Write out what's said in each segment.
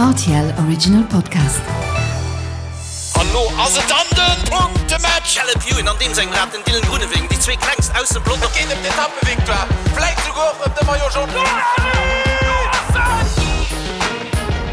Rtl Original Podcast. An lo ass et dann den Punktematch! Caleb Ewan an deem sengem Rad den Dylan Groenewegen, déi zwee klengst aus dem Pelotong. Et geet ëm d'Etappevictoire, vläit souguer och ëm de Maillot Jaune.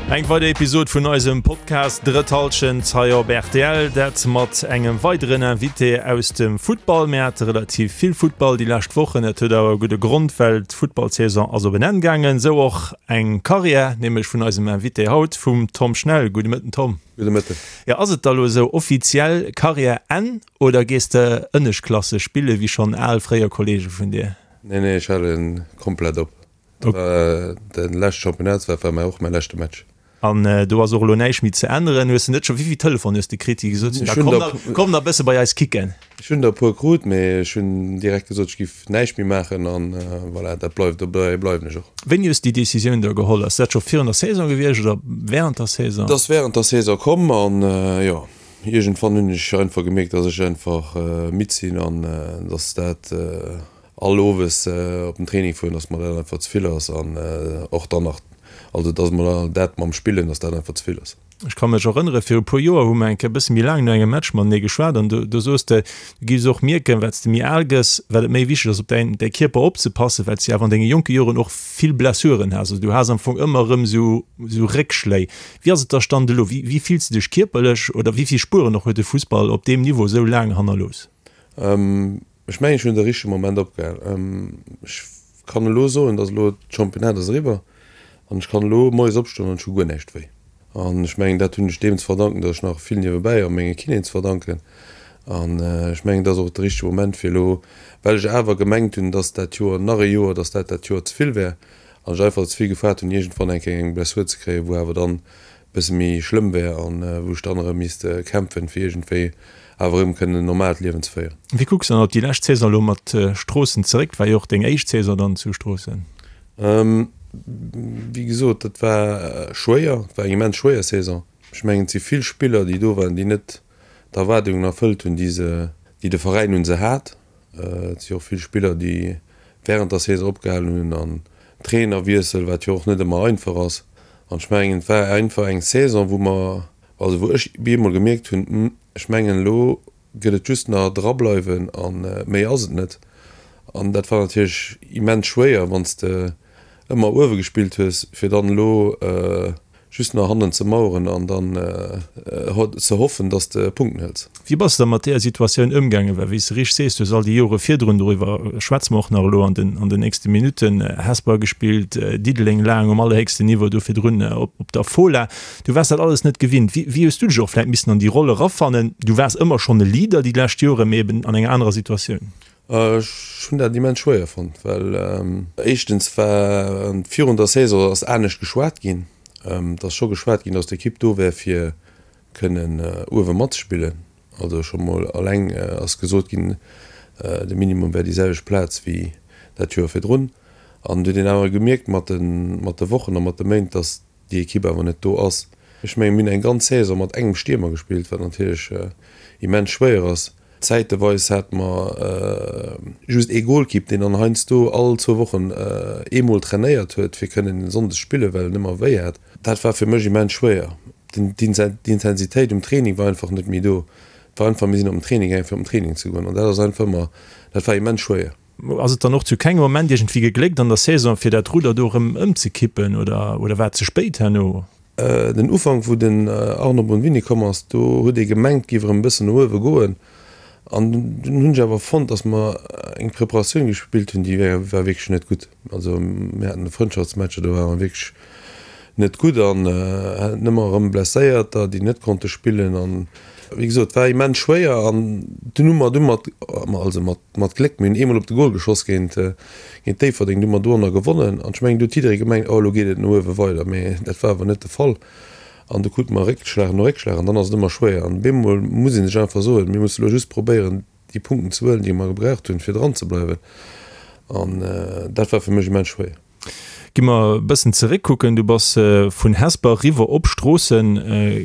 Eng weider Episod vun eisem Podcast Drëtt Hallschent hei op rtl. Dat mat engem weideren Invité aus dem Futtball. Mir hate relativ vill Futtball déi lescht Wochen. Dat huet awer e gudde Grond, well d'Futtballsaison ass op en Enn gaangen. Esou och eng Karriär, nämlech vun eisem Invité haut, vum Tom Schnell. Gudde Mëtten, Tom. Gudde Mëtten. Jo, ass et da lo esou offiziell Karriär Enn oder gees de Ënneschtklasse spille wéi schonn al fréier Kollege vun dir? Nee, nee, ech hale komplett op. De leschte Championnat war war och mäi leschte Match. An do ass och elo näischt méi ze änneren. Hues de net scho, wéi vill Telefon hues de kritt, déi gesot hunn, da komm nach, komm nach e bësse bei eis kicken? Ech hunn der e puer krut, mee ech hunn direkt gesot, ech giff näischt méi maachen an voilà, dat bleift, dobäi bleiwen ech och. Wéini hues de déi Decisioun da geholl? Ass dat scho virun der Saison gewiescht oder während der Saison? Et ass während der Saison komm an jo, iergendwann hunn ech einfach gemierkt, dass ech einfach midd sinn an dass dat all owes op den Training fueren, dass mer dat einfach ze vill ass an och dann nach, also dass mer dat mam Spillen, dass dat einfach ze vill ass. Ech ka mech erënnere viru puer Joer hu mer eng Kéier e bësse méi laang no engem Match matenee geschwat an do do soos de, du giffs och mierken, wat s de méi al gëss, wat et méi wichteg ass op däin däi Kierper opzepassen, well s de awer an denge jonke Joren och vill Blessuren has. Also du has am Fong ëmmer erëm esou esou Réckschléi. Wéi ass et da Stand elo? Wéi wéi fills de dech kierperlech oder wéi vill Spueren och huet de Fussball op deem Niveau esou laang hannerlooss? Ech mengen, ech hunn de richtege Moment opgehal. Ech kann elo soen, dass elo d'Championnat ass eriwwer an ech kann elo moies opstoen an ech hu guer näischt wéi. An ech mengen, dat hunn ech deem ze verdanken, dass ech nach vill niewebäi a menge Kinéen ze verdanken. An ech mengen, dat ass och de richtege Moment fir elo, well ech awer gemengt hunn, dass dat Joer nach e Joer, dass dat dat Joer ze vill wär an ech einfach ze vill gefaart hunn, iergendwann eng Kéier eng Blessur ze kréien, wou awer dann bësse méi schlëmm wär an wou ech dann erëm misst kämpfen, fir iergendwéi awer erëm kënnen en normaalt Liewen ze féieren. Wéi kucks de dann op déi lescht Saison elo mat Stroossen zeréck? War jo och deng éischt Saison dann zu Stroossen. Wéi gesot, dat war schwéier, et war eng immens schwéier Saison. Ech mengen, et si vill Spiller, déi do waren, déi net d'Erwaardungen erfëllt hunn, déi se, déi de Veräin un se hat. Et si och vill Spiller, déi wärend der Saison opgehalen hunn an Trainerwiessel, wat jo och net ëmmer einfach ass. An ech mengen, et war einfach eng Saison, wou mer, also wou ech bemol gemierkt hunn, Hm, ech mengen, elo gëtt et just nach drableiwen a méi ass et net. An dat war natierlech immens schwéier, wann s de ëmmer uewe gespillt hues, fir dann elo just nach hannen ze maueren an dann ze hoffen, dass de Punkten hëls. Wéi bass de da mat deeër Situatioun ëmgaangen? Well wéi s de richteg sees, du hues all déi Jore virdrun, doriwwer schwätze mer och nach elo an den an den nächste Minutten, Hesper gespillt, Diddeleng laang um allerhéchsten Niveau, do virdrun op der Fola. Du waars dat alles net gewinnt. Wéi wéi hues du dech och vläicht missen an déi Roll erafannen? Du waars ëmmer schonn e Leader déi lescht Jore, mee eben an enger anerer Situatioun. Ech hunn dat immens schwéier fonnt, well éischtens war virun der Saison ass anescht geschwat ginn. Et ass scho geschwat ginn, datt d'Ekipp do wär fir kënnen uewe matzespillen. Also scho mol alleng ass gesot ginn, de Minimum wär déi selwecht Plaz wéi dat Joer virdrun. An et huet een awer gemierkt mat de Wochen a mat de Méint, datt déi Ekipp awer net do ass. Ech mengen, mir hunn eng ganz Saison mat engem Stiermer gespillt, wat natierlech immens schwéier ass. Zäiteweis hate mer just ee Golkipp, deen dann heiansdo all zwou Wochen eemol trainéiert huet, fir kënnen sonndes spillen, well en ëmmer wéi hat. Dat war fir mech immens schwéier. D'Intensitéit um Training war einfach net méi do. Et war einfach, mir sinn op den Training gaangen, fir op den Training ze goen. An dat ass einfach ëmmer, dat war immens schwéier. Ass et dann och zu kengem Moment iergendwéi gegléckt an der Saison, fir dat Rudder do erëm ëmzekippen oder oder war et ze spéit herno? Den Ufank, wou den Arno Bonvini komm ass, do huet ee gemengt, et géif erëm e bëssen no uewe goen. An dunn hunn ech awer fonnt, datt mer eng Preparatioun gespillt hunn, déi war wierklech net gutt. Also mir haten Frëndschaftsmatcher, do ware mer wierklech net gutt an haten ëmmer erëm Blesséierter, déi net konnte spillen. An wéi gesot, et war immens schwéier an dunn hu mer du mat, also mat Mat Gléck, mir hunn eemol op de Gol geschoss géint géint Déifferdeng, du hu mer doranner gewonnen an ech mengen, do huet jidderee gemengt, oh elo geet et no uewe weider, mee dat war awer net de Fall an du krute mer Réckschlag no Réckschlag an dann ass et ëmmer schwéier an bemol muss ee sech einfach soen, mir musse elo just probéieren déi Punkten ze huelen, déi mer gebraucht hunn, fir dran ze bleiwen an dat war fir mech immens schwéier. Gi mer e bëssen zeréckkucken, Du bass vun Hesper eriwwer op Stroossen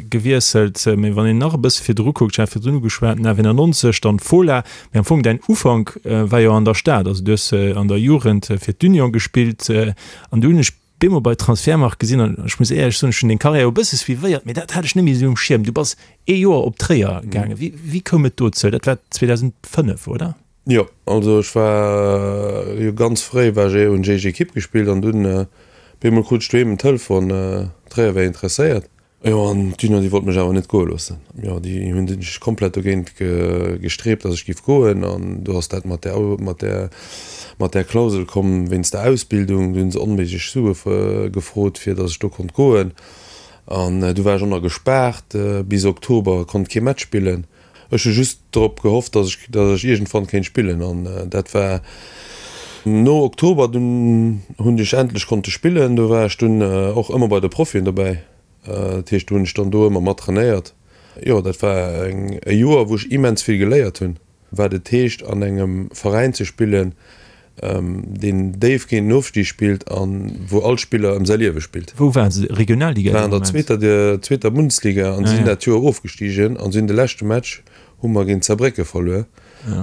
gewiesselt. Mee wann een nach e bësse virdru kuckt, ech hat virdrun ugeschwat, 99, dann d'Fola. Mee am Fong däin Ufank war jo an der Stad. Also du hues an der Jugend fir d'Union gespillt an du hunn ech. bemol bei Transfermarkt gesinn an ech muss éierlech soen, ech hunn deng Karriär e bësse suivéiert, mee dat hat ech net méi esou um Schierm. Du bass ee Joer op Tréier gaangen. Wéi, wéi koum et dozou? Dat war 2005, oder? Jo, also ech war jo ganz fréi war ech hunn ech éischt Ekipp gespillt an dunn bemol krut ech doheem en Telefon, Tréier wär interesséiert. Jo, an d'Junior, déi wollt mech awer net goe loossen. Jo, déi hunn sech komplett dogéint gestreebt, datt ech giff goen. An do ass dat mat där, mat där, mat där Klausel komm wéinst der Ausbildung. Do hunn se onméiglech Sue gefrot, fir datt ech do konnt goen. An du war ech och nach gespaart bis Oktober, konnt kee Match spillen. Ech hu just drop gehofft, dass ech, dass ech iergendwann kéint spillen an dat war no Oktober. Dunn hunn ech endlech konnte spillen. Do war ech dunn och ëmmer bei de Profien dobäi. Dat heescht, do hunn ech dann do ëmmer mat trainéiert. Jo, dat war eng, e Joer, wou ech immens vill geléiert hunn, wat et heescht an engem Veräin ze spillen, deen déif géint den Ofstig spillt an wou all Spiller ëm säi Liewe spillt. Wou waren se? Regionalliga dee Moment? War an der zweeter, zweeter Bundesliga an si sinn dat Joer ofgestigen an si hunn de leschte Match hu mer géint Saarbrécke verluer.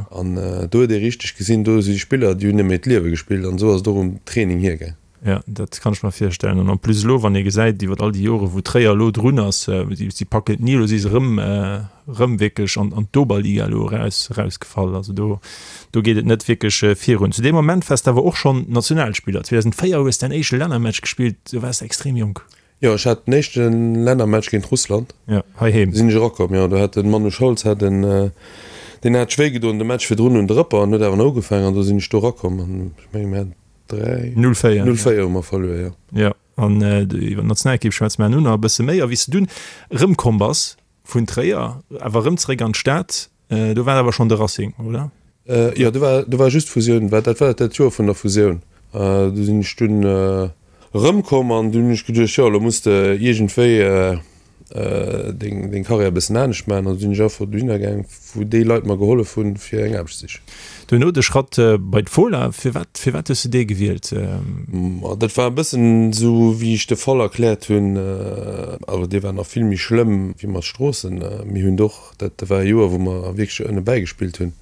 An do huet ee richteg gesinn, do si Spiller, déi hunn ëm hiert Liewe gespillt an esou ass et och um Training hiergaang. Jo, dat kann ech mer virstellen. An en plus elo, wann ee gesäit iwwer all déi Jore wou Tréier elo drun ass, si packen et ni, elo si se erëm, erëm wierklech an an d'Oberliga elo eraus, erausgefall. Also do, do geet et net wierklech virun. Zu deem Moment waars de awer och schonn Nationalspiller. 2004 hues däin éischte Lännermatch gespillt, do waars de extrem jonk. Jo, ech hat den éischte Lännermatch géint Russland. Jo, heiheem. Sinn ech erakomm, jo. Do hat de Manu Scholz hat en, deen hat sech wéi gedoen de Match virdrun un de Rëpper an huet awer nach ugefaangen an do sinn ech do erakomm an ech menge mir haten 3, 0-4. 0-4 hu mer verluer, jo. Jo, an iwwer d'Nationalekipp schwätze mer herno nach e bësse méi. A wéi s de dunn erëmkomm bass vun Tréier, awer erëm zeréck an d'Stad, do war awer schonn de Racing, oder? Jo, do war, do war just Fusioun, war, dat war dat Joer vun der Fusioun. Do sinn ech dunn erëmkomm an dunn hunn ech geduecht, jo, elo muss de iergendwéi deng deng Karriär e bëssen anescht maachen an du sinn ech einfach dohinner gaang wou déi Leit mer gehollef hunn fir eng Aarbecht ze sichen. Duerno de Schratt bei d'Fola, firwat firwat hues de dee gewielt? Ma dat war e bëssen esou wéi ech de Fall erkläert hunn, awer dee war nach vill méi schlëmm wéi mat Stroossen. Mir hunn och, dat war e Joer wou mer wierklech ënne bäigespillt hunn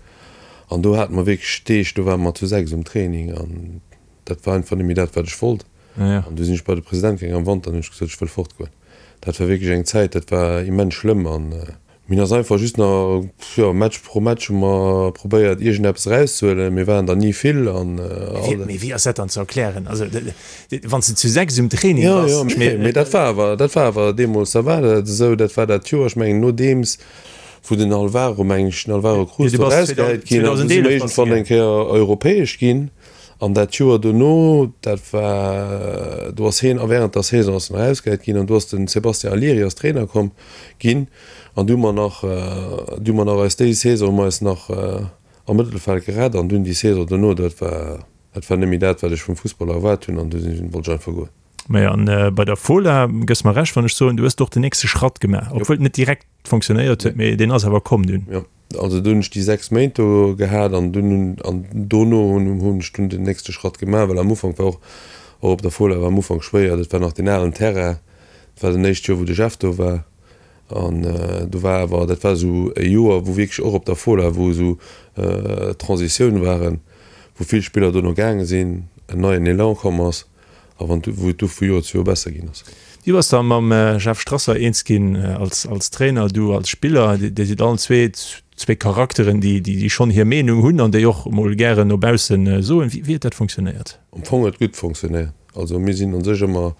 an do hate mer wierklech Deeg, do ware mer zu 6 um Training an dat war einfach net méi dat wat ech wollt. An du sinn ech bei de President gaangen am Wanter an hunn ech gesot, ech wëll fortgoen. Dat war wierklech eng Zäit, dat war immens schlëmm an mir hunn ass einfach just nach, jo, Match pro Match hu mer probéiert iergendeppes erauszehuelen. Mir waren der ni vill an all. Mee wéi ass dat dann ze erklären? Also wann s de zu 6 um Training bass. Jo, jo, mee dat war awer, dat war awer deemools, da war dat esou, dat war dat Joer, ech mengen nodeems wou den Alvaro, mengen ech, den Alvaro Cruz do erausgehäit ginn ass, du si mer iergendwann eng Kéier europäesch ginn. An dat Joer dono, dat war, do ass hien a während der Saison ass en erausgehäit ginn an do ass den Sébastien Allieri als Trainer komm ginn an du hu mer nach, du hu mer nach eis déi Saison hu mer eis nach am Mëttelfeld gerett an dunn déi Saison dono, dat war, dat war net méi dat wat ech vum Fussball erwaart hunn an du sinn, wollt ech einfach goen. Majo, an bei der Fola, gëss mer Recht wann ech soen, du hues do och den nächste Schratt gemaach, obwuel et net direkt fonctionnéiert huet, mee deen ass awer komm dunn. Jo. Also do hunn ech déi 6 Méint do gehat an dunn hunn, an dono hunn hunn ech dunn den nächste Schratt gemaach, well am Ufank war och, och op der Fola war am Ufank schwéier, dat war nach deen alen Terrain, dat war den éischt Joer wou de Jeff do war an do war awer, dat war esou e Joer wou wierklech och op der Fola, wou esou Transitioun waren, wou vill Spiller dono gaange sinn, en neien Elan komm ass. A wann wou et du vu Joer zu Joer besser ginn ass. Du bass da mam Jeff Strasser eens ginn als als Trainer, du als Spiller. Dir sidd allen zwee zwee Charakteren, déi déi schonn hir Meenung hunn an déi och mol gären no baussen soen. Wéi huet dat funktionéiert? Am Fong huet et gutt funktionéiert. Also mir sinn un sech ëmmer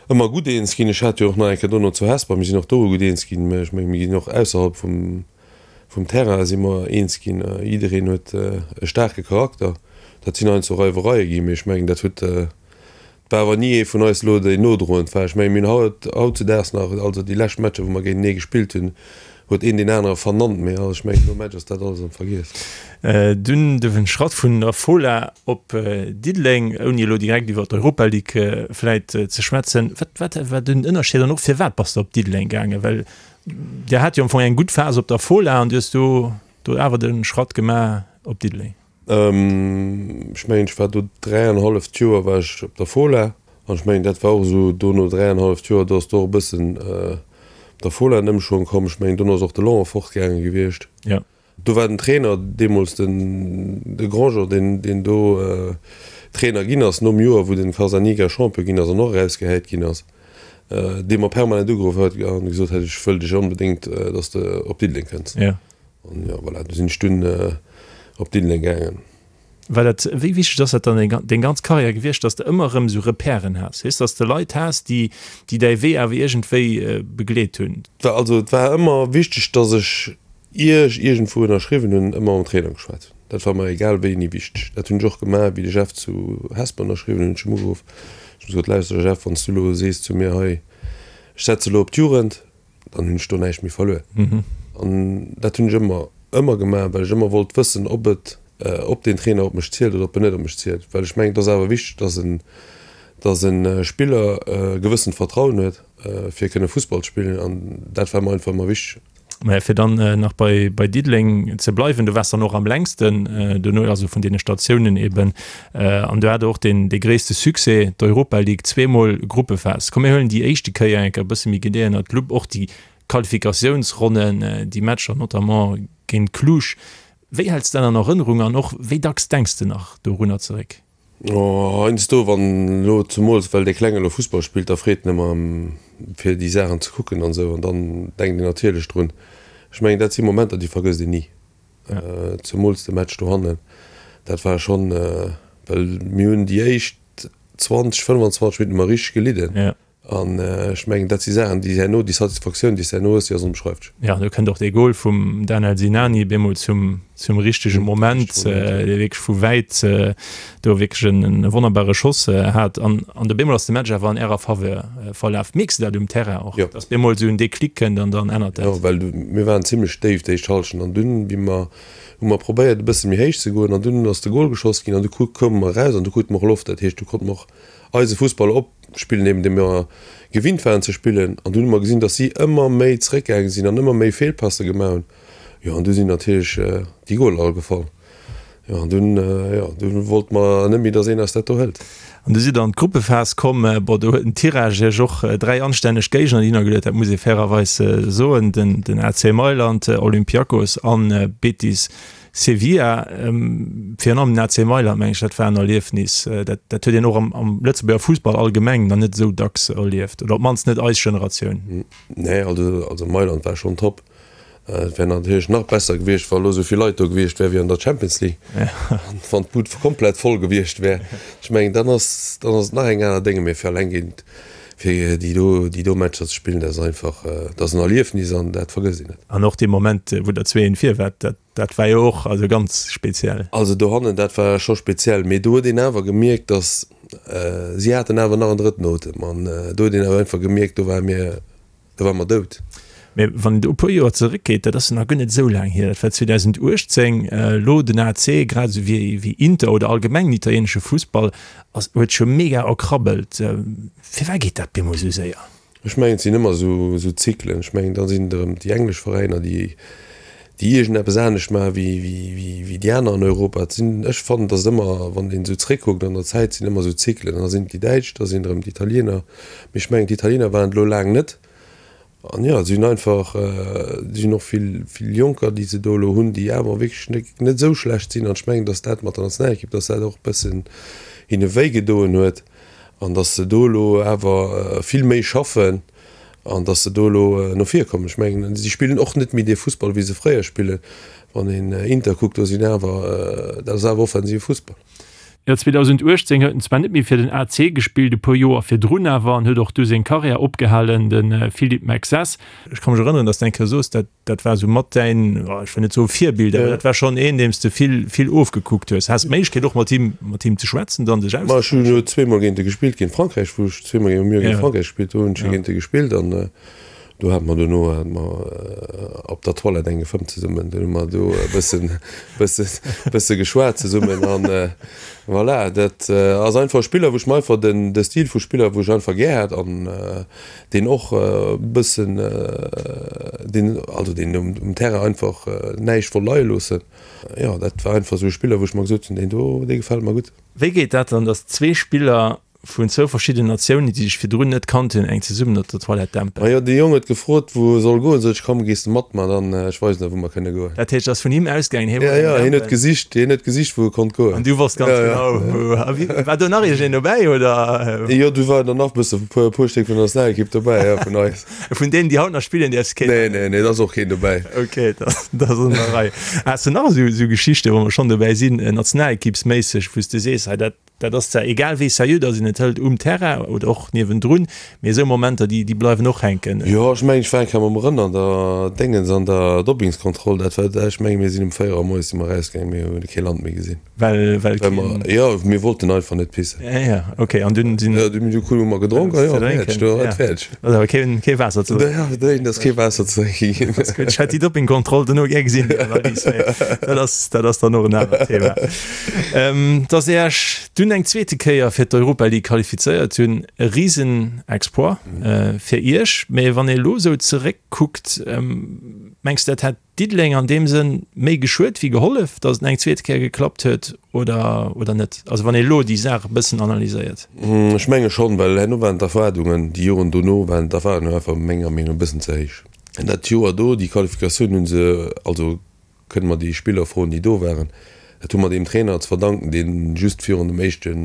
ëmmer gutt eens ginn. Ech hat jo och nach eng Kéier dono zu Hesper, mir sinn och do gutt eens ginn. Mä ech menge mir ginn och ausserhalb vum Vum Terrain si mer eens ginn. Jiddereen huet e staarke Charakter. Dat sinn heiansdo Reiwereie ginn, mee ech mengen, dat huet, et war awer ni ee vun eis elo, deen nodroend war. Ech mengen, mir hunn haut, hautzudaags nach, also déi lescht Matcher, wou mer géintenee gespillt hunn, huet een deen anere vernannt, mee ech mengen, nom Match ass dat alles am Vergiess. Dunn de Schratt vun der Fola op Diddeleng, ouni elo direkt iwwer d'Europa League vläit ze schwätzen. Wat, wat war den Ënnerscheed an och firwat bass de op Diddeleng gaangen? Well Dir hat jo am Fong eng gutt Phas op der Fola an du hues do do awer de Schratt gemaach op Diddeleng. Ech mengen, ech war do dräianhalleft Joer war ech op der Fola an ech mengen, dat war och esou do no dräianhalleft Joer, do ass do och e bëssen op der Fola en Ëmschwong komm. Ech mengen, dono ass och de Laurent fortgaange gewiescht. Jo. Do war den Trainer deemools den de Grandjean, deen deen do Trainer ginn ass nom Joer wou den Carzaniga Champion ginn ass an och erausgehäit ginn ass, dee mer permanent ugeruff huet an gesot huet, ech wëll dech onbedéngt, datt s de op Diddeleng kënns. An jo voilà, du sinn ech dunn op Diddeleng gaangen. War dat, wéi wichteg ass dat dann deng ganz Karriär gewiescht, datt s de ëmmer erëm esou Repèren has, weess, datt s de Leit has, déi déi däi Wee awer iergendwéi begleet hunn? Also et war ëmmer wichteg, datt ech Ier ech iergendwou ënnerschriwwen hunn, ëmmer mam Trainer geschwat. Dat war mer egal wéini wichteg. Dat hunn ech och gemaach, wéi de Jeff zu Hesper ënnerschriwwen hunn, hunn ech him ugeruff, ech hunn gesot, Lauschter Jeff, wann s du elo sees zu mir, hei, ech setze elo op d'Jugend, dann hunn ech do näischt méi verluer. An dat hunn ech ëmmer, ëmmer gemaach, well ech ëmmer wollt wëssen, ob et, ob deen Trainer op mech zielt oder ob en net op mech zielt. Well ech mengen, et ass awer wichteg, dass en, dass e Spiller e gewëssent Vertrauen huet, fir kënne Fussball ze spillen. An dat war mer einfach ëmmer wichteg. Mä fir dann nach bei, bei Diddeleng ze bleiwen, du waars dann och am längsten dono, also vun deene Statiounen eben, an du hat och deen, dee gréisste Succès, d'Europa League, zweemol Gruppephas. Komm mir huelen déi éischte Kéier eng Kéier e bësse méi genee ënnert d'Lupp, och déi Qualifikatiounsronnen, déi Matcher notamment géint Cluj. Wéi häls de dat an Erënnerung an och wéi dacks denks de nach dorunner zeréck? Oh, heiansdo, wann elo, zemools well dee Klenge elo Fussball spillt, da freet en ëmmer fir déi Saachen ze kucken an esou, an dann denkt een natierlech drun. Ech mengen, dat si Momenter, déi vergësst een ni. Zemools de Match dohannen, dat war schonn, well mir hunn déi éischt 20, 25 Minutten hu mer richteg gelidden. An ech mengen, dat si Saachen, déi herno, déi Satisfaktioun, déi s de herno hues, déi ass onbeschreiflech. Jo, do kënnt och dee Gol vum Danel Sinani bemol zum, zum richtege Moment, dee wierklech vu wäit do wierklech en wonnerbare Schoss hat. An, an do bemol ass de Match awer an ärer Faveur verlaf. Mierks de dat um Terrain och, dass bemol esou en Déclic kënnt an dann ännert dat? Jo, well mir waren zimlech déif d'éischt Hallschent an dunn, wéi mer, hu mer probéiert e bësse méi héich ze goen an dunn ass de Gol geschoss ginn an du koume mer eraus an du krute mer och Loft. Dat heescht, du konnte mer och eise Fussball opspillen, eben dee mir gewinnt waren ze spillen. An dunn hu mer gesinn, datt si ëmmer méi zeréckgaange sinn an ëmmer méi Feelpasse gemaach hunn. Jo, an du sinn natierlech déi Goler all gefall. Jo, an dunn, jo, du wollte mer net méi, datt een eis dat do hëlt. An du sidd an d'Gruppephas komm. Bon, do huet den Tirage iech och 3 anstänneg Géigner hinnergeluet, dat muss ee fairerweis soen, den AC Mailand, Olympiakos an Betis Sevilla, virun allem den AC Mailand, meng ech, dat war en Erliefnis, dat dat huet een och am am Lëtzebuerger Fussball allgemeng nach net esou dacks erlieft, oder op d'mannst net eis Generatioun. Nee, also also Mailand war schonn top. Et wär natierlech nach besser gewiescht, wa elo esou vill Leit do gewiescht wären wéi an der Champions League, an wann d'Bud komplett voll gewiescht wär. Ech mengen, dann ass dann ass et nach eng aner Dénge, mee fir alleng géint fir déi do déi do Matcher ze spillen, dat ass einfach, dat ass en Erliefnis an dat vergësst een net. An och dee Moment, wou der 2, 1 vir waart, dat Dat war jo och also ganz speziell. Also dohannen, dat war scho speziell, mee do huet een awer gemierkt, datt si haten awer nach en drëtten Otem an do huet een awer einfach gemierkt, do ware mir, do ware mer dout. Mee wann een do e puer Joer zeréckgeet, dat ass jo nach guer net esou laang hier, dat war 2018, elo den AC, grad esou wéi wéi Inter oder allgemeng den italienesche Fussball ass, huet scho mega erkrabbelt. Firwat geet dat bemol esou séier? Ech mengen, et sinn ëmmer esou Zyklen. Ech mengen, da sinn et erëm déi englesch Veräiner, déi iergendeppes anescht maache wéi déi aner an Europa. Et sinn, ech fannen, datt et ëmmer, wann een esou zréckkuckt an der Zäit, sinn ëmmer esou Zyklen. An da sinn et déi Däitsch, da sinn et erëm d'Italiener. Mee ech mengen, d'Italiener waren et elo laang net. An jo, si hunn einfach, si hunn och vill, vill Jonker, déi se do elo hunn, déi awer wierklech net esou schlecht sinn. An ech mengen, datt dat mat der Nationalekipp, datt dat och e bëssen hinne wéigedoen huet. an datt se do elo awer vill méi schaffen an datt se do elo no vir kommen. Ech mengen, si spillen och net méi dee Fussball, wéi se fréier spillen. Wann een Inter kuckt, do sinn awer, dat ass awer offensive Fussball. Jo, 2018 huet en zwar net méi fir den AC gespillt, e puer Joer virdrun awer, an huet och du seng Karriär opgehalen, de Philippe Mexès. Ech ka mech erënneren, datt s de eng Kéier soos, dat Dat war esou mat däin, ech wëll net soe Virbild, awer dat war schonn een, deem s de vill, vill ofgekuckt hues. Has d'Méiglechkeet och mat him, mat him ze schwätzen, dann sech Ma ech hunn jo zweemol géint e gespillt, géint Frankräich, wou ech zweemol géint, mir hu géint Frankräich gespillt, do hunn ech jo géint e gespillt an do hate mer dono hate mer op der Toilette eng gefëmmt zesummen. Dunn hu mer do e bëssen, bësse, bësse geschwat zesummen an voilà. Dat ass einfach e Spiller, wou ech mer einfach den, de Stil vu Spiller, wou ech einfach gär hat an deen och e bëssen, deen, also deen um Terrain einfach näischt wollt leie loossen. Jo, dat war einfach esou e Spiller, wou ech mer gesot hunn, deen do, dee gefält mer gutt. Wéi geet dat dann, datt zwee Spiller. Vun zwou verschiddenen Natiounen, déi sech virdrun net kannt hunn, eng zesummen op der Toilette dämpen. Majo, de Jong huet gefrot, wou e soll goen. Sot ech, komm, gees de mat mer, dann ech weisen der, wou mer kënne goen. Dat heescht, ass vun him ausgaangen, hie wollt eng dämpen. Jo, jo, hien huet gesicht, hien huet gesicht, wou e konnt goen. An du wosst ganz genau, wou. A wie, war do nach iergendeen dobäi, oder? Jo, do waren der nach bësse, e puer Stéck vun der Nationalekipp dobäi, jo, vun eis. Vun deenen, déi haut nach spillen, däerfs keen nennen. Nee, nee, nee, da ass och keen dobäi. Ok, dat ass an der Rei. Has de nach esou Geschichten, wa mer schonn dobäi sinn, nationalekippsméisseg, wou s de sees, hei dat, Dat ass zwar egal wéi seriö dass een et hëlt um Terrain oder och niewendrun, mee esou Momenter déi déi bleiwen och hänken. Jo, ech mengen ech war eng Kéier mam Rënn an der Déngens an der Doppingskontroll, dat war, ech mengen mir sinn um 4 Auer moies si mer erausgaangen, mir hunn kee Land méi gesinn. Well, well keen. Well mer, jo, mir wollten einfach net pissen. Ja, ja, ok, an dunn sinn. Jo, dunn hu mer gedronk a jo, fäerdeg, do war et fäerdeg. Ass awer keen, kee Waasser ze drénken. Ja, dréin, ass kee Waasser ze drénke ginn. Ass gutt, ech hätt déi Dopingkontroll dono gär gesinn, déi Analys, mee dat ass, dat ass dann och en anert Thema. Dass Dir Iech dunn eng zweete Kéier fir d'Europa League qualifizéiert hunn, e Risen-Exploit fir Iech. Mee wann ee elo esou zeréckkuckt, mengs de dat hätt Diddeleng an deem Sënn méi geschuet wéi gehollef, datt et eng zweete Kéier geklappt huet oder, oder net? Also wann ee elo déi Saach e bëssen analyséiert. Ech menge schonn, well herno waren d'Erwaardungen, déi Joren dono waren d'Erwaardungen einfach menger Meenung no e bëssen ze héich. Dat Joer do, déi Qualifikatioun hu se, also kënne mer déi Spiller froen, déi do waren, dat hu mer deem Trainer ze verdanken, dee just virun dem éischte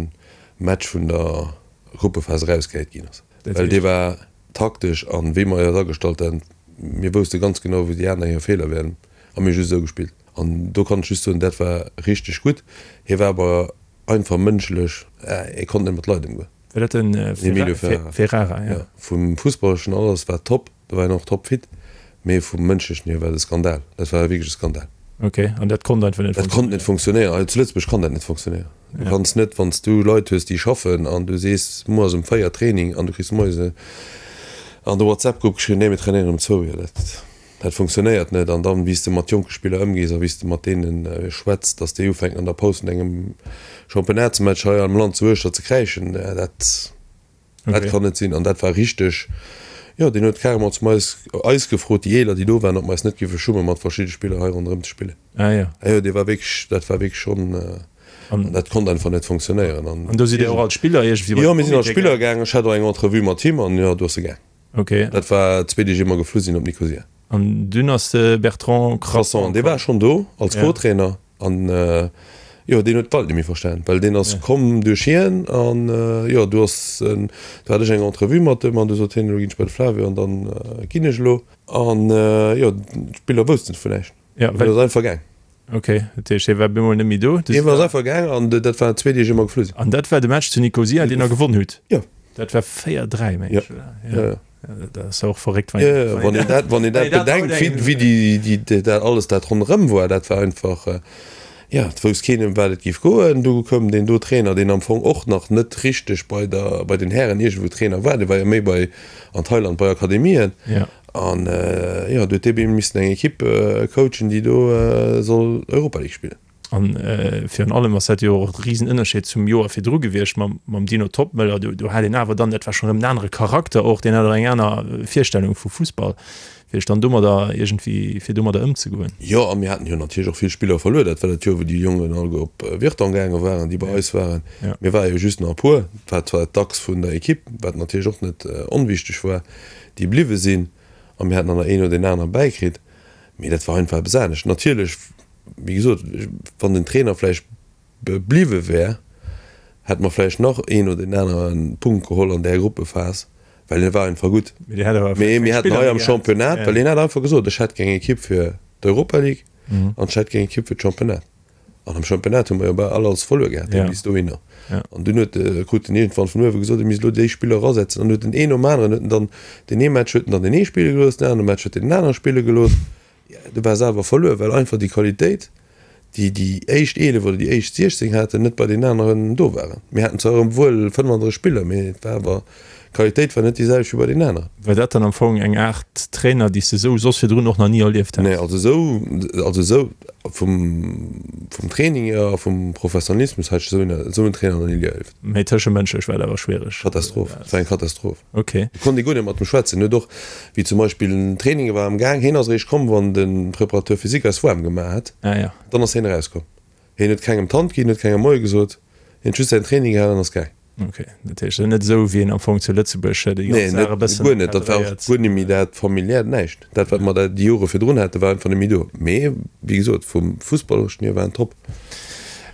Match vun der Gruppephas erausgehäit ginn ass, well dee war taktesch an wéi mer eis agestallt han, mir wousste ganz genau wou déi aner hir Feeler wären a mir hu just esou gespillt an do kann ech just soen, dat war richteg gutt. Hie war awer einfach mënschlech, hie konnt net mat Leit ëmgoen. War dat den Emilio Ferrara? Ferrara, ja. Vum Fussballeschen alles war top, do war hien och topfit, mee vum mënschlechen hier war et e Skandal, dat war wierklech e Skandal. Ok, an dat konnt einfach net funktionéieren? Dat konnt net funktionéieren. Hei zu Lëtzebuerg kann dat net funktionéieren. Du kanns net, wann s du Leit hues, déi schaffen an du sees, muer ass um 4 Training an du kriss moies an de WhatsApp-Grupp geschriwwen, nee mir trainéieren um zwou. Jo, dat, dat funktionéiert net. An dann, wéi s de mat jonke Spiller ëmgees a wéi s de mat deene schwätz, datt déi ufänken an der Paus vun engem Championnats-Match hei am Land zu Uechter ze kräischen, dat, Dat kann net sinn. An dat war richteg, jo, deen huet carrément zum eis, eis gefrot, déi Eeler, déi do waren, ob mer eis net géife schummen, mat verschidde Spiller hei ronderëm ze spillen. Ah jo. Ah jo, dee war wierklech, dat war wierklech schonn, an dat konnt einfach net funktionéieren. An do sidd Dir och als Spiller iergendwéi bei de Jo, mir sinn als Spiller gaangen. Ech hat och eng Entrevue mat him an jo, do ass e gaang. Ok. Dat war zwee Deeg ier mer geflu sinn op Nikosia. An dunn ass de Bertrand Crasson komm. Dee war schonn do als Co-Trainer an jo, deen huet d'Welt net méi verstan, well deen ass komm duerch hien an jo, du ass, do hat ech eng Entrevue mat em an du sot hien, elo ginn ech bei de Flavio an dann ginn ech elo. An jo, d'Spiller woussten vun näischt. Ja, well. Deen ass einfach gaang. Ok, dat heescht, hie war bemol net méi do. Hie ass einfach gaang an dat war zwee Deeg ier mer geflu sinn. An dat war de Match zu Nikosia, deen der gewonn hutt? Jo. Dat war 4, 3, meng ech, oder? Jo, jo. Dat ass och verréckt, wann een, wann een dat, wann een dat bedenkt, wéi, wéi déi, déi, dat alles dat ronderëm war, dat war einfach, jo, et wousst keen ëm wat et géif goen. Du koum deen do Trainer, deen am Fong och nach net richteg bei der, bei den Hären iergendwou Trainer war, dee war jo méi bei, an Thailand bei Akademien. Jo. An jo, do huet dee missen eng Ekipp coachen, déi do soll Europa League spillen. An virun allem ass dat jo och e Risenënnerscheed zum Joer virdru gewiescht mam Dino Toppmöller. Do hat een awer dann, dat war schonn erëm en anere Charakter och, deen hat och eng aner Virstellung vu Fussball, fir sech dann domadder iergendwéi, fir domadder ëmzegoen. Jo, a mir haten jo natierlech och vill Spiller verluer. Dat war dat Joer, wou déi Jongen alleguer op Virton gaange waren, déi bei eis waren. Mir ware jo just nach e puer, et war zwar d'Achs vun der Ekipp, wat natierlech och net onwichteg war, déi bliwwe sinn a mir hätten dann nach een oder deen anere bäikritt, mee dat war einfach eppes anescht. Natierlech, wéi gesot, wann den Trainer vläicht bliwwe wär, hätte mer vläicht nach een oder deen anere Punkt geholl an där Gruppephas, well hie war einfach gutt. Mee mir hätten hei am Championnat, well hien hat einfach gesot, ech hätt gär eng Ekipp fir d'Europa League an ech hätt gär eng Ekipp fir d'Championnat. An am Championnat hu mer jo bal all alles verluer gehat bis dohinner. An dunn huet de, krut en iergendwann vun uewe gesot, e misst elo déi Spiller erasetzen. An huet en een nom aneren, huet en dann deen ee Match huet en dann deen ee spille gelooss, den anere Match huet en den anere spille gelooss. Du war se awer verluer, well einfach déi Qualitéit, déi déi éischt 11 oder déi éischt 16 haten, net bei deenen aneren do waren. Mir haten zwar erëm wuel 35 Spiller, mee et war awer, d'Qualitéit war net déi selwecht wéi bei deenen aneren. War dat dann am Fong eng Aart Trainer, déi s de esou soss virdrun och nach ni erlieft häss? Nee, also esou, also esou vum, vum Training hier a vum Professionalismus hat ech esou en, esou en Trainer nach ni erlieft. Mee tëschemënschlech war dat awer schwiereg? Katastroph, et war eng Katastroph. Ok. Do konnt ee guer net mat em schwätzen. Huet och, wéi zum Beispill den Training war am Gaang, hien ass eréischt komm, wann de Préparateur physique eis waarm gemaach hat, Ah ja. dann ass hien erauskomm. Hien huet kengem d'Hand ginn, huet kengem Moie gesot, hien huet just säin Training gehalen an ass gaang. Ok, dat heescht net esou wéi een am Fong zu Lëtzebuerg déi ganz Saach e bëssen. Nee, guer net. Dat war och guer net méi dat familiäert, näischt. Dat wat mer da déi Jore virdrun haten, war einfach net méi do. Mee wéi gesot, vum Fussballereschen hier war en top.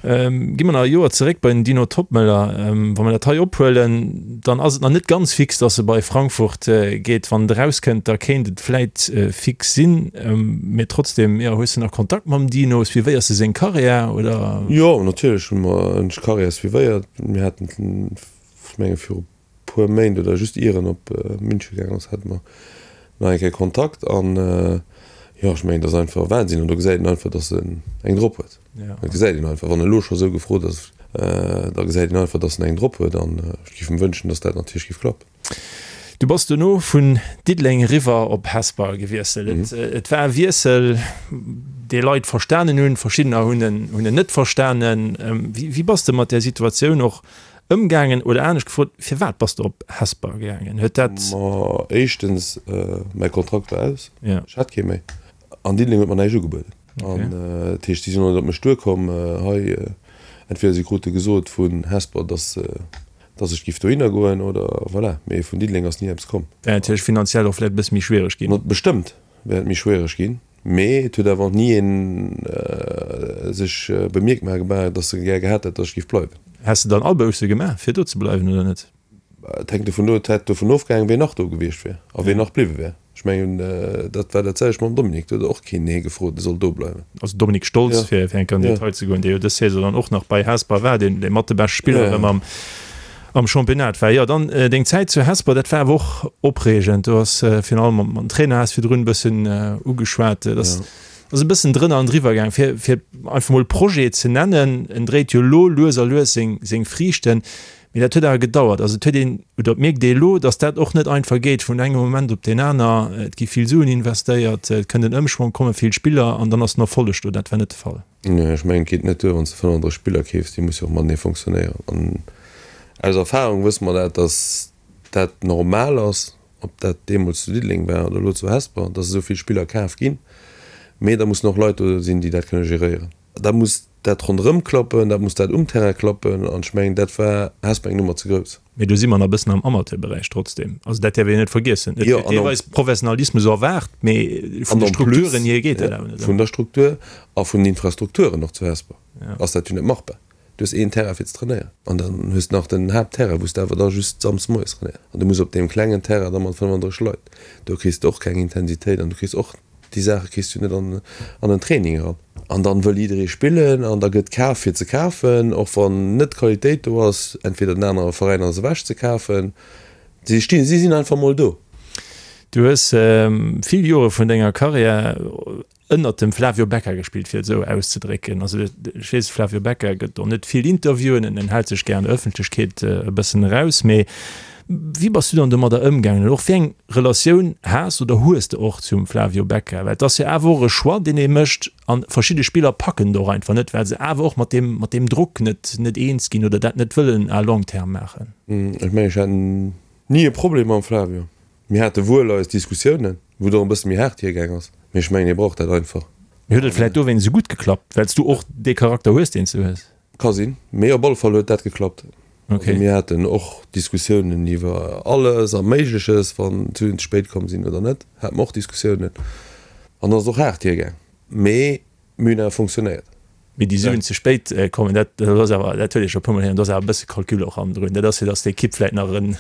Gi mer nach e Joer zeréck bei den Dino Toppmöller. Wa mer dat hei ophuelen, dann ass et nach net ganz fix, datt e bei Frankfurt geet. Wann et erauskënnt, da kéint et vläit fix sinn. Mee trotzdem, jo, hues de nach Kontakt mam Dino? Suivéiers de seng Karriär, oder? Jo, natierlech hu mer, hunn ech d'Karriär suivéiert. Mir haten, ech menge viru puer Méint oder just ier en op München gaangen ass, hate mer nach eng Kéier Kontakt. An jo, ech mengen, dat ass einfach Wahnsinn. An do gesäit een einfach, datt en eng drop huet. Dat gesäit een einfach. Wann en elo scho sou gefrot ass, da gesäit een einfach, datt en eng drop huet. An ech géif em wënschen, datt dat natierlech géif klappen. Du bass dono vun Diddeleng eriwwer op Hesper gewiesselt. Et war e Wiessel, dee Leit verstanen hunn, verschiddener hunn en hunn en net verstanen. Wéi bass de mat där Situatioun och ëmgaangen? Oder anescht gefrot, firwat bass de op Hesper gaangen? Huet dat. Ma éischtens, mäi Kontrakt war aus, ech hat kee méi. An Diddeleng huet mer näischt ugebueden. An dat heescht, si sinn och net op mech duerkomm hei. Entweder si krute gesot vun Hesper, dass dass ech giff dohinner goen oder voilà. Mee vun Diddeleng ass ni eppes komm. Wär natierlech finanziell och vläicht e bësse méi schwiereg ginn. Bestëmmt wär et méi schwiereg ginn, mee et huet awer och ni een sech bemierkbar gemaach, dass e gär gehat hätt, dass ech giff bleiwen. Häss de dann Abousse gemaach, fir do ze bleiwen oder net? Et hänkt dovun, et hätt dovun ofgehaangen, ween nach do gewiescht wier a ween nach bliwwe wär. Ech mengen, dat war dat selwecht mam Dominique, do huet och keen hie gefrot, e soll do bleiwen. Also Dominique Stolz, fir eng Kéier an den Detail ze goen, dee jo dës Saison dann och nach bei Hesper war, deen mat de beschte Spiller erëm am am Championnat war. Jo, dann deng Zäit zu Hesper, dat war awer och opreegend. Du has virun allem mam Trainer has virdrun e bëssen ugeschwat, dat ass e bëssen drënner an driwwer gaang. Fir fir einfach mol Projet ze nennen, en dréit jo elo lues a lues seng seng Friichten. Mee dat huet awer gedauert. Also et huet een, oder et mierkt ee elo, datt dat och net einfach geet vun engem Moment op deen aner. Et gi vill Suen investéiert, et kënnt en Ëmschwong, komme vill Spiller an dann ass den Erfolleg do. Dat war net de Fall. Nee, ech mengen, et geet net duer, wann s de 35 Spiller keefs, déi musse jo och matenee fonctionnéieren. An aus Erfahrung wësse mer dat, datt dat normal ass, ob dat deemools zu Diddeleng war oder elo zu Hesper, datt esou vill Spiller kaf ginn. Mee da mussen och Leit do sinn, déi dat kënne geréieren. Da muss dat ronderëm klappen, dat muss dat um Terrain klappen an ech mengen, dat war Hesper eng Nummer ze grouss. Mee do si mer nach e bëssen am Amateurberäich trotzdem. Also dat däerf een net vergiessen. Et gëtt deelweis Professionalismus erwaart, mee vun de Strukturen hier geet dat awer net ëmmer. Vun der Struktur a vun den Infrastrukturen och zu Hesper ass dat jo net machbar. Du hues een Terrain fir ze trainéieren an dann hues de nach den Haaptterrain, wou s de awer da just samsdes moies trainéiers an du muss op deem klengen Terrain da mat 35 Leit, do kriss de och keng Intensitéit an du kriss och Déi Saache kriss du net an en Training eran. An dann wëll jidderee spillen an da gëtt kaf fir ze kafen, och wann net d'Qualitéit do ass, entweder den anere Veräin ass ewech ze kafen. Si stinn, si sinn einfach mol do. Du hues vill Jore vun denger Karriär ënnert dem Flavio Becca gespillt, fir et esou auszedrécken. Also ech weess, de Flavio Becca gëtt och net vill Interviewen, en hält sech gär an der Ëffentlechkeet e bëssen eraus, mee Wéi bass du dann domadder ëmgaangen oder och wéi eng Relatioun has oder hues de och zum Flavio Becca? Well et ass jo awer och e Choix, deen ee mécht an verschidde Spiller packen et och einfach net, well se awer och mat deem, mat deem Drock net, net eens ginn oder dat net wëllen à long terme maachen. Ech mengen, ech hat ni e Problem mam Flavio. Mir hate wuel eis Diskussiounen, wou et och e bësse méi haart hiergaang ass, mee ech mengen, hie brauch dat einfach. Mee huet et vläicht dowéinst esou gutt geklappt, well s du och dee Charakter hues, deen s du hues? Ka sinn, mee op alle Fall huet dat geklappt. Okay. Also mir haten och Diskussiounen iwwer alles a Méigleches, wann d'Suen ze spéit komm sinn oder net, hate mer och Diskussiounen. An ass och haart hiergaang, mee mir hunn awer fonctionnéiert. Mee déi Suen ze spéit kommen, dat ass awer, dat huet ee scho e puermol héieren, do ass awer e bësse Calcul och hannendrun. Dat ass fir datt d'Ekipp vläicht nach en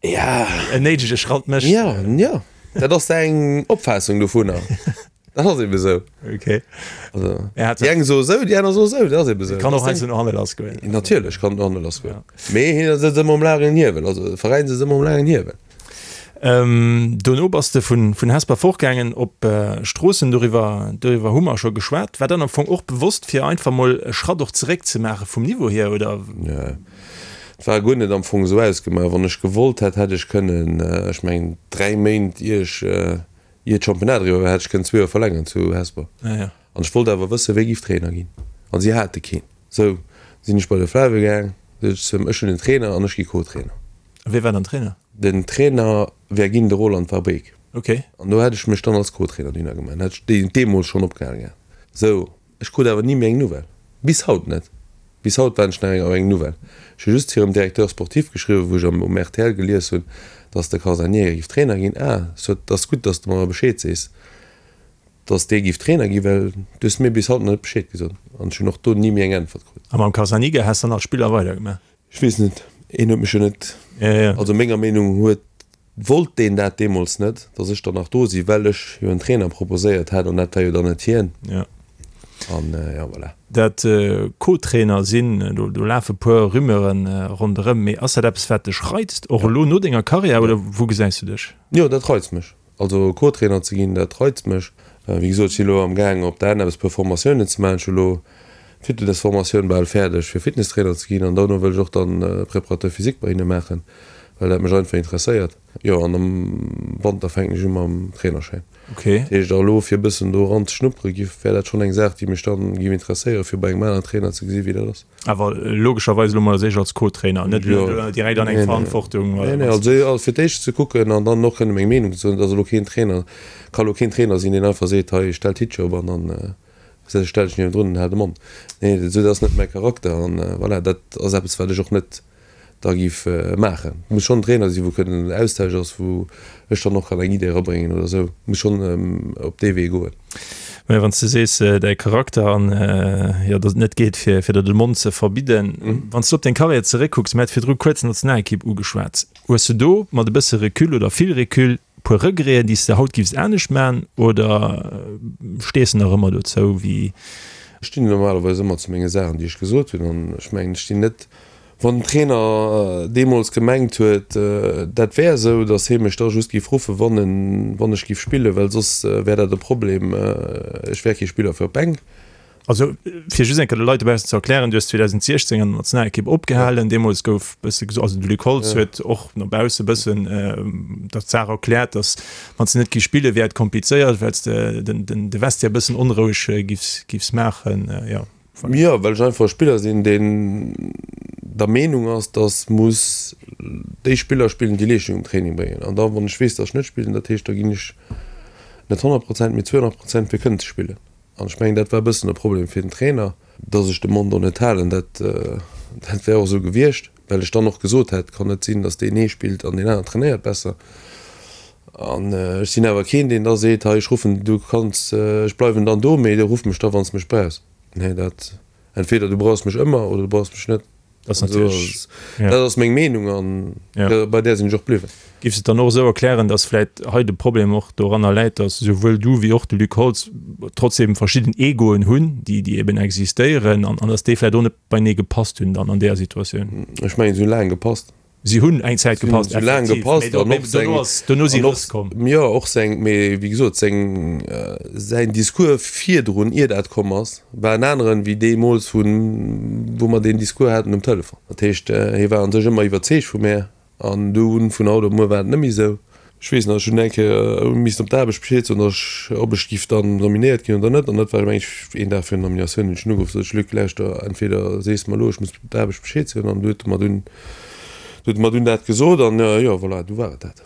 en néidege Schratt mécht. Jo, jo, dat ass eng Opfaassung dovunner. Dat ass eben esou. Okay. Also, er hat déi eng soe sou, déi aner soe sou, dat ass eben esou. Kann och heiansdo no hanne lass goen. Natierlech kann et no hanne lass goen. Ja. Mee hien sëtzt ëmmer um laangen Hiewel, also de Veräin sëtzt ëmmer um laangen Hiewel. Ähm, dono bass de vun, vun Hesper fortgaangen op äh, Stroossen, doriwwer, doriwwer hu mer scho geschwat. War dann am Fong och bewosst, fir einfach mol e Schratt och zeréck ze maache vum Niveau hier, oder? Nee, et war guer net am Fong esou ausgemaach. Wann ech gewollt hätt, hätt ech kënnen, ech mengen 3 Méint ier ech, Ier d'Championnat eriwwer war, hätt ech kënnen zwee Joer verlängeren zu Hesper. An ech wollt awer wëssen, wéi giff Trainer ginn. An si hate keen. Sou sinn ech bei de Flavio gaang, sot ech zu him, ech hunn en Trainer an ech gi Co-Trainer. A wie war dann Trainer? Den Trainer wär ginn de Roland Verbeek. Ok. An do hätt ech mech dann als Co-Trainer dohinner gemaach. Dann hätt ech deemools schonn opgehale gehat. Sou, ech krut awer ni méi eng Nouvelle. Bis haut net. Bis haut waarden ech nach eng op eng Nouvelle. Ech hu just hirem Directeur sportif geschriwwen, wou ech am um rtl gelies hunn, dass de Carzaniga giff Trainer ginn. Ah, sot, 't ass gutt, dass de mer Bescheed sees, dass dee giff Trainer ginn, well du hues mir bis haut nach net Bescheed gesot. An ech hunn och do ni méi eng Äntwert krut. A mam Carzaniga häss dann als Spiller weidergemaach? Ech weess net, een huet mech jo net, also menger Meenung huet Wollt deen dat deemools net, datt ech dann nach do sinn, well ech jo en Trainer proposéiert hat an dat war jo dann net hien. Ja. An jo, voilà. Dat Co-Trainer sinn, do do lafe puer Rumeuren ronderëm, mee ass dat eppes wat dech reizt, och elo no denger Karriär, oder wou gesäis du dech? Jo, dat reizt mech. Also Co-Trainer ze ginn, dat reizt mech. Wéi gesot, ech sinn elo am gaang op der ANEPS e puer Formatiounen ze maachen. Ech hu elo d'Fitnessformatioun bal fäerdeg fir Fitnesstrainer ze ginn an dono wëll ech och dann Préparateur physique bei hinne maachen, well dat mech einfach interesséiert. Jo, an am Wanter fänken ech u mam Trainerschäin. Okay. Dat heescht, elo fir e bëssen do eran ze schnuppere giff, wär dat schonn eng Saach, déi mech dann giff interesséieren, fir bei engem aneren Trainer ze gesi wéi dat ass. Awer logescherweis elo mol als éischt als Co-Trainer, net elo direkt an eng Verantwortung. Nee, nee, also fir d'éischt ze kucken an dann och kënne meng Meenung ze soen. Et ass elo keen Trainer, ka elo keen Trainer sinn, deen einfach seet, hei stell d'Hittche op an dann stell ech niewendrun an hal de Mond. Nee, esou dat ass net mäi Charakter an voilà, dat ass eppes wat ech och net da géif maachen. Et muss schonn en Trainer sinn, wou kënnen en Austausch ass, wou ech dann och kann eng Idee erabréngen oder esou. Et muss schonn op dee Wee goen. Mä wann s de sees, däi Charakter an, jo, datt et net geet, fir fir der de Mond ze verbidden. Wann s du op deng Karriär zeréckkucks, mir hate virdru kuerz d'Nationalekipp ugeschwat, hues du do mat e bësse Recul oder vill Recul puer Regreten, déi s de haut giffs anescht man oder stees de nach ëmmer dozou wéi? Ech stinn normalerweis ëmmer zu menge Saachen, déi ech gesot hunn an ech mengen, ech stinn net Wann den Trainer deemools gemengt huet, dat wär esou, datt hie mech da just géif ruffen, wann en, wann ech géif spillen, well soss wär dat e Problem, ech wär kee Spiller fir op d'Bänk. Also, fir just eng Kéier de Leit dobaussen ze erklären, Du hues 2016 an der Nationalekipp opgehalen. Deemools gouf e bësse gesot, also de Luc Holtz huet och no bausse e bëssen dat d'Saach erkläert, datt wann s de net géifs spillen, wär et komplizéiert, well s de den de Vestiaire e bëssen onroueg géifs, géifs maachen. Jo. Jo, well ech einfach e Spiller sinn, deen der Meenung ass, dass muss déi Spiller spillen, déi Leeschtung um Training bréngen. An da wann ech weess, dass ech net spillen, dat heescht, da ginn ech net 100 Prozent, mee 200 Prozent fir kënnen ze spillen. An ech mengen, dat war e bëssen e Problem fir den Trainer, dass ech de Mond och net halen. Dat dat wär och esou gewiescht, well ech dann och gesot hätt, kann net sinn, dass deen ee spillt an deen aneren trainéiert besser. An ech sinn awer keen, deen da seet, hei ech ruffen, du kanns, ech bleiwen dann do, mee ruff mech da wann s de mech brauchs. Nee, dat, entweder du brauchs mech ëmmer oder du brauchs mech net. Dat ass natierlech, ja. Dat ass meng Meenung an ja. bei där sinn ech och bliwwen. Giffs de et dann och esou erklären, datt vläit hei de Problem och doranner läit, datt esouwuel du wéi och de Luc Holtz trotzdem verschidden Egoen hunn, déi, déi eben existéieren an, an datt déi vläit och net beinee gepasst hunn dann an deeër Situatioun? Ech mengen, se hu laang gepasst. Si hunn eng Zäit gepasst, effektiv, laang gepasst an och seng, dono si Rëss komm. Jo, och seng, mee wéi gesot, seng, säin Discours virdrun, ier dat komm ass, war en aneren wéi deemools, wou, wou mer deen Discours haten um Telefon. Dat heescht, hie war a sech ëmmer iwwerzeegt vu mär an dunn, vun haut op muer, war et net méi esou. Ech weess nach, ech hunn eng Kéier missen op d'Aarbecht Bescheed soen, datt ech, ob ech giff dann nominéiert ginn oder net. An dat war, meng ech, een Dag virun der Nominatioun hunn ech en ugeruff, sot ech, Luc, lauschter, entweder sees de mer elo, ech muss op d'Aarbecht Bescheed soen, an du huet e mer dunn, du huet e mer dunn dat gesot an jo, voilà, du war et dat.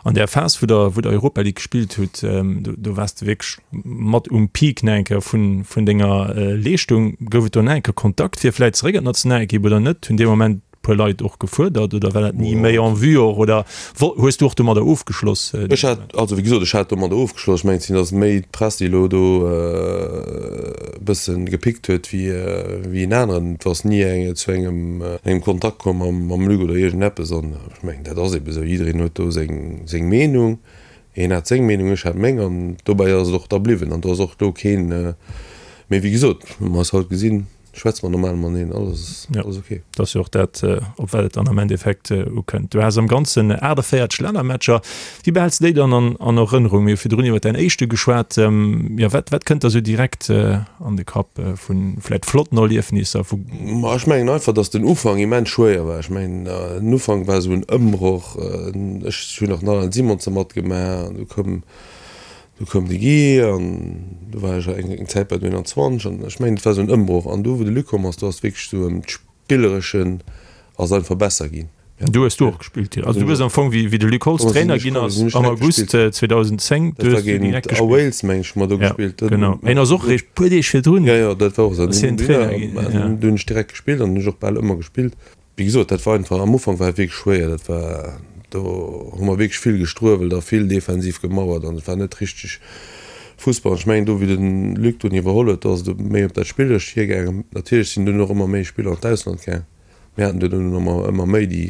An där Phas, wou der, wou der Europa League gespillt hutt, do, do waars de wierklech mat um Peak nach eng Kéier vun, vun denger Leeschtung. Gouf et do nach eng Kéier Kontakt fir vläit zeréck an d'Nationalekipp oder net? Hunn dee Moment puer Leit och gefuerdert oder war dat ni méi en vue och oder hues du och domadder ofgeschloss? Ech hat, also wéi gesot, ech hat domadder ofgeschloss. Ech mengen, et sinn ass méi d'Press, déi elo do e bësse gepickt huet wéi wéi en aneren. Et ass ni eng zu engem engem Kontakt komm mam mam Luc oder iergendeppes an ech mengen, dat ass ebe sou. Jiddereen huet do seng seng Meenung. Hien hat seng Meenung, ech hat meng an dobäi ass et och da bliwwen an do ass och elo keen, mee wéi gesot, hu mer eis haut gesinn. Schwätze mer normal mateneen, alles alles ok. Dat ass jo och dat, op wat et dann am Endeffekt ukënnt. Du has am Ganzen 48 Lännermatcher. Wéi behäls de déi dann an an Erënnerung? Mir hu virdrun iwwer däin éischte geschwat. Jo, wat wat kënnt der sou direkt an de Kapp vu vläicht flotten Erliefnisser, vu. Ma ech mengen einfach, datt den Ufank immens schwéier war. Ech mengen, den Ufank war esou en Ëmbroch. Ech hunn nach den Alain Simonsen matgemaach an du koum Du koum de Guy an du war ech eng Zäit bei den 21 an ech mengen et war esou en Ëmbroch an du wou de Luc komm ass, do ass wierklech esou ëm d'Spillereschen ass einfach besser ginn. Du hues do och gespillt, jo. Also du hues am Fong, wéi de Luc Holtz Trainer ginn ass am August 2010, du hues du direkt gespillt. A Wales, meng ech, hu mer do gespillt. Ja, genau. Hien ass och eréischt puer Deeg virdrun. Jo, jo, dat war och esou. Ass hien Trainer ginn, jo. Do hunn ech direkt gespillt an hunn ech och bal ëmmer gespillt. Wéi gesot, dat war einfach, am Ufank war et wierklech schwéier. Dat war, do hu mer wierklech vill gestruewelt a vill defensiv gemauert an et war net richteg Fussball. Ech mengen do, wéi de Luc dunn iwwerholl huet, do ass et méi op dat Spillerescht hiergaangen. Natierlech sinn dunn och ëmmer méi Spiller an d'Ausland gaang. Mir haten dunn ëmmer ëmmer méi, déi,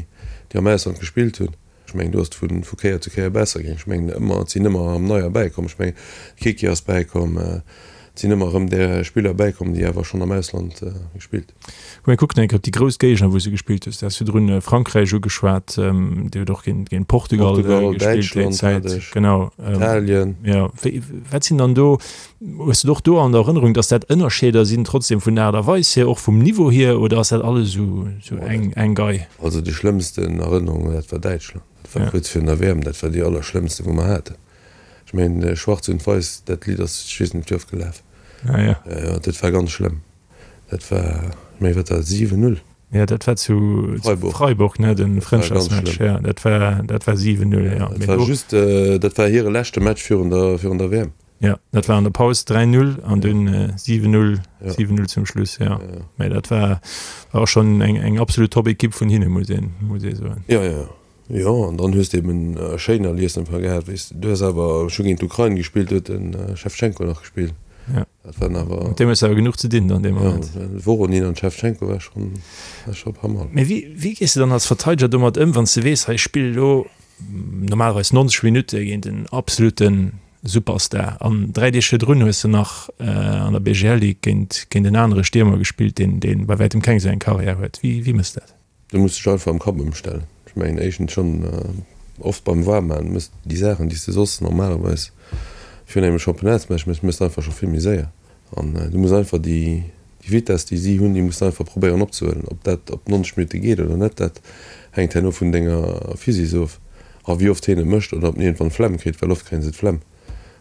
déi am Ausland gespillt hunn. Ech mengen, do ass et vu, vu Kéier zu Kéier besser gaang. Ech mengen ëmmer, et sinn ëmmer erëm neier bäikomm. Ech mengen, de Kiki ass bäikomm, et sinn ëmmer erëm där Spiller bäikomm, déi awer schonn am Ausland gespillt. Komm mir kucken eng Kéier op déi grouss Géigner, wou s du gespillt hues. Du has virdrun Frankräich ugeschwat, Dir hutt och géint, géint Portugal Portugal, gespillt déi Däitschland hat Zäit. ech, Genau. Italien. Jo, wéi, wat sinn dann do Hues de et och do an der Erënnerung, dass dat Ënnerscheeder sinn trotzdem vun der Aart a Weis hier, och vum Niveau hier, oder ass dat alles esou eng eng Gei? Also déi schlëmmsten Erënnerung, dat war Däitschland. Dat war kuerz virun der WM, dat war déi allerschlëmmste wou mer haten. Ech mengen Schwarz und Weiß, dat Lidd ass ech weess net wéi oft gelaf. Ah ja. Jo, dat war ganz schlëmm. Dat war, ech mengen wat war dat, 7, 0? Ja, dat war zu Freiburg, Freiburg ne, den Frëndschaftsmatch. Ja, dat war dat war 7, 0, ja. Dat war just, dat war hire leschte Match virun der virun der WM. Ja, dat war an der Paus 3-0 an dunn 7-0, 7-0 zum Schluss, ja. Mä dat war, war och schonn eng, eng absolut Top-Ekipp vun hinne, muss een, muss ee soen. Jo, jo, jo, an dann hues de eben schéin Erliesneffer gehat, weess de. Du hues awer, ech hu géint d'Ukrain gespillt, do huet de Schewtschenko nach gespillt. Ja. Dat waren awer. Mat deem hues de awer genuch ze dinn dann dee Moment. Jo, de Voronin an d'Schewtschenko war schonn, war scho pas mal. Mä wéi, wéi gees de dann als Verteideger domat ëm, wann s de weess, hei ech spille lo normalerweis 90 Minutte géint en absoluten Superstar. An 3 Deeg virdrun hues de nach an der BGL Ligue géint géint en anere Stiermer gespillt, deen deen bei wäitem keng esou eng Karriär huet. Wéi wéi mëss dat? Du muss dech einfach am Kapp ëmstellen. Ech mengen éischtens schonn oft beim Waarmaachen mëss déi Saachen déi s de soss normalerweis virun engem Championnats-Match mëss, mëss de einfach scho vill méi séier. An du muss einfach déi Vitess, déi si hunn, déi muss de einfach probéieren opzehuelen. Ob dat op 90 Minutte geet oder net, dat hänkt herno vun denger Physis of a wéi oft hien et mécht oder ob en iergendwann d'Flemm kritt, well oft kréie se d'Flemm,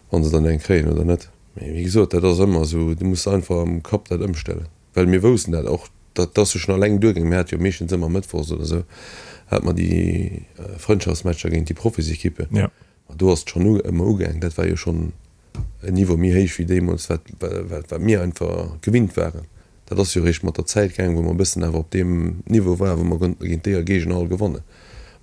wa se dann eng kréien oder net. Mee wéi gesot, dat ass ëmmer esou, du muss einfach am Kapp dat ëmstellen, well mir woussten dat och, dat ass jo schonn alleng duergaangen. Mir hate jo meeschtens ëmmer mëttwochs oder esou hate mer déi Frëndschaftsmatcher géint déi Profisekippen. Ma do ass et schonn ëmmer ugaangen. Dat war jo schonn en Niveau méi héich wéi deemools, wat, wat mir einfach gewinnt waren. Dat ass jo eréischt mat der Zäit gaangen, wou mer e bëssen awer op deem Niveau waren, wou mer konnten géint déi Géigner all gewannen.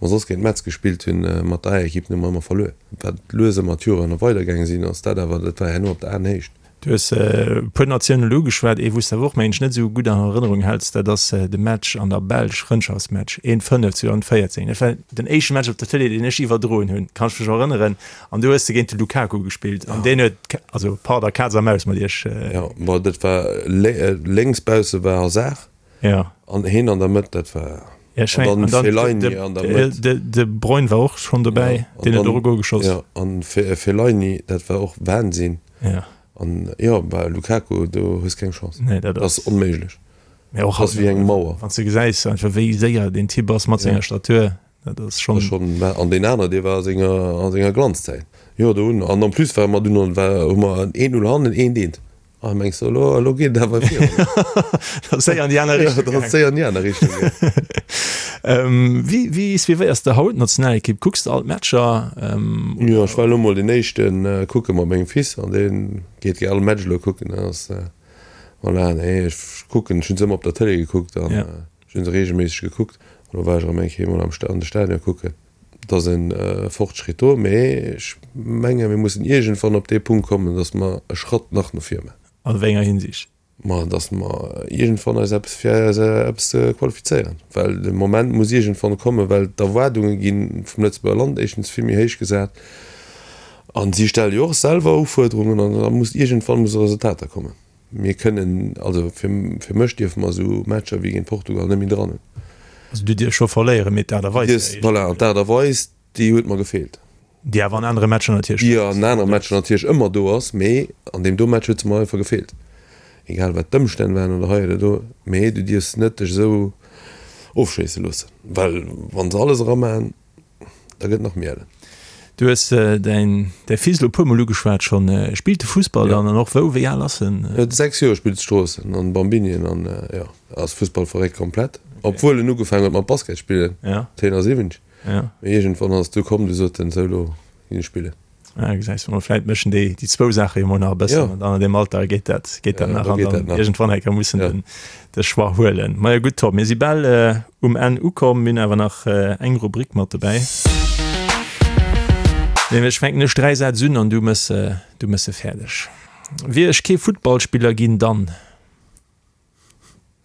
Wa mer soss géint Metz gespillt hunn mat der A-Ekipp, hu mer ëmmer verluer. Wat lues ëmmer d'Joren weidergaange sinn, ass dat awer, dat war herno op der Aenhéicht. Du hues e puer Natiounen elo ugeschwat. Ee wou s de awer och, mengen ech, net esou gutt an Erënnerung häls, dat ass de Match an der Belsch, Frëndschaftsmatch, een 5 2014. Dat war den éischte Match op der Tëlee, deen ech iwwerdroen hunn, kann ech mech erënneren. An do hues de géint de Lukaku gespillt an deen huet, also pardon, Kaz a Maus mat iech. Jo, ma dat war lénks bausse war Hazard. Ja. An heen an der Mëtt, dat war. Ja, ech mengen, an dann Fellaini an der Mëtt. De, de Bruyne war och schonn dobäi, ja, deen huet och e Gol geschoss. Ja, an Fellaini, dat war och Wahnsinn. Ja. An jo, bei Lukaku, do hues keng Chance. Nee, dat ass onméiglech. Mee och ass wéi eng Mauer. Wann s de gesäis einfach wéi séier deen Typ ass mat senger Statur, dat ass schonn. Schonn, an deen aner, dee war a senger, a senger Glanzzäit. Jo, do hunn, an en plus ware mer dunn, war, hu mer 1-0 hannen, 1-1. Ah, mengs du, elo, elo geet et awer virun. Dat ass séier an déi aner Richtung gaangen. Dat ass séier an déi aner Richtung gaangen. Wéi, wéi suivéiers de haut d'Nationalekipp? Kucks de all d'Matcher? Jo, ech war elo mol deen éischten kucke mat mengem Fils an dee geet gär all Match elo kucken. Dat ass, voilà, nee, ech kucken, ech hunn se ëmmer op der Tëlee gekuckt an ech hunn se reegelméisseg gekuckt. Elo war ech erëm eng Kéier mol am an de Stadion kucken. Et ass e Fortschritt do, mee ech menge mir mussen iergendwann op dee Punkt kommen, datt mer e Schratt nach no vir maachen. An wéi enger Hinsicht? Ma datt mer iergendwann eis eppes fir eis eppes qualifizéieren. Well de Moment muss iergendwann kommen, well d'Erwaardunge gi vum Lëtzebuerger Land éischtens vill méi héich gesat a si stelle jo och selwer Ufuerderungen an da muss iergendwann musse Resultater kommen. Mir kënnen, also fir fir mech dierfe mer esou Matcher wéi géint Portugal net méi dran hunn. Also du dierfs scho verléieren, mee d'Aart a Weis wär éischter. Voilà, an d'Aart a Weis, déi huet mer gefeelt. Déi awer an anere Matcher natierlech do ass. Déi an anere Matcher natierlech ëmmer do ass, mee an deem do Match huet se mer einfach gefeelt. Egal wat d'Ëmstänn waren oder hei oder do, mee du dierfs net dech esou ofschéisse loossen, well wa se alles eramaachen, Da gëtt nach méi ellen. Du hues däin däi Fils elo e puer mol ugeschwat schonn. Spillt e Fussball dann an och wou? Wéi al ass en? Huet 6 Joer, spillt Stroossen an Bambinien an jo, ass Fussballverréckt komplett. Obwuel en ugefaangen huet mat Basket spillen, 71. Mee iergendwann ass et du komm, du sot en, sou lo ginn ech spillen. Ah, gesäis du mol, vläit mëschen déi déi zwou Saache jo mol nach e bëssen an dann an deem Alter geet dat geet dat nach an dann iergendwann eng Kéier muss en den de Choix huelen. Majo gutt Tom, mir si bal um Enn ukomm, mir hunn awer nach eng Rubrik mat dobäi. Nämlech fänken ech 3 Sätz un an du mëss du mëss se fäerdeg. Wier ech kee Futtballspiller ginn, dann.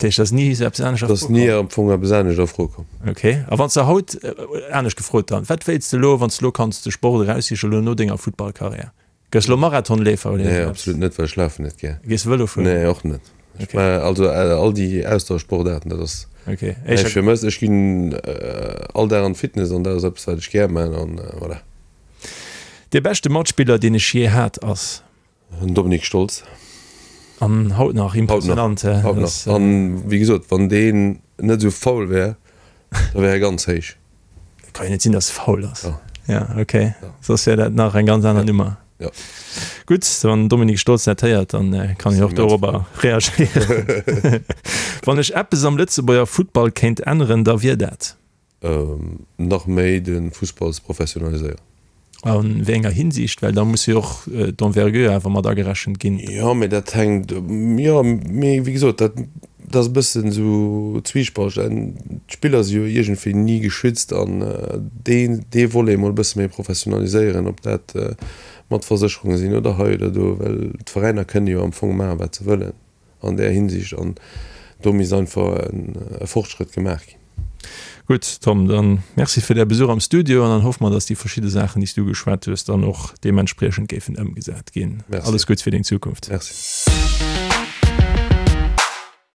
Dat heescht, ass ni esou eppes anescht a Fro komm? Ass ni am Fong eppes anescht a Fro komm. Ok. A wann s de haut, anescht gefrot dann, wat wéilts de elo, wann s de elo kanns de Sport eraussichen, elo no denger Futtballkarriär? Gëss elo Marathonleefer oder Nee, absolut net, well ech lafen net gär. Gees de Vëlo fueren? Nee, och net. Ech maachen also all déi Ausdauersportaarten, dat ass näischt fir mech. Ech ginn all Dag an d'Fitness an dat ass eppes, wat ech gär maachen an voilà. Dee beschte Matspiller, deen ech jee hat, ass? Den Dominik Stolz. An haut nach, impressionant. Haut nach. An wéi gesot, wann deen net esou faul wär, da wär e ganz héich. Ka jo net sinn, dass e faul ass. Ja, ok. Soss wär dat nach eng ganz aner Nummer. Ja. Gutt, wann den Dominik Stolz dat héiert, dann kann hien och dorobber reagéieren. Wann ech eppes am Lëtzebuerger Futtball kéint änneren, da wier dat? Nach méi de Fussball ze professionaliséieren. A wéi enger Hinsicht? Well da muss jo och d'Envergure awer mat agerechent ginn. Jo, mee dat hänkt, jo, mee wéi gesot, dat ass e bëssen esou zwiespalteg. D'Spiller si jo iergendwéi ni geschützt an deen, dee Volet emol e bësse méi professionaliséieren, ob dat mat Versécherunge sinn oder hei oder do, well d'Veräiner kënne jo am Fong maachen, wat se wëllen. an där Hinsicht an do misst einfach e Fortschrëtt gemaach ginn. Gutt Tom, dann Merci fir däi Besuch am Studio an dann hoffe mer, dass déi verschidde Saachen, déi s du ugeschwat hues, dann och deementspriechend géifen ëmgesat ginn. Alles Gutts fir deng Zukunft. Merci.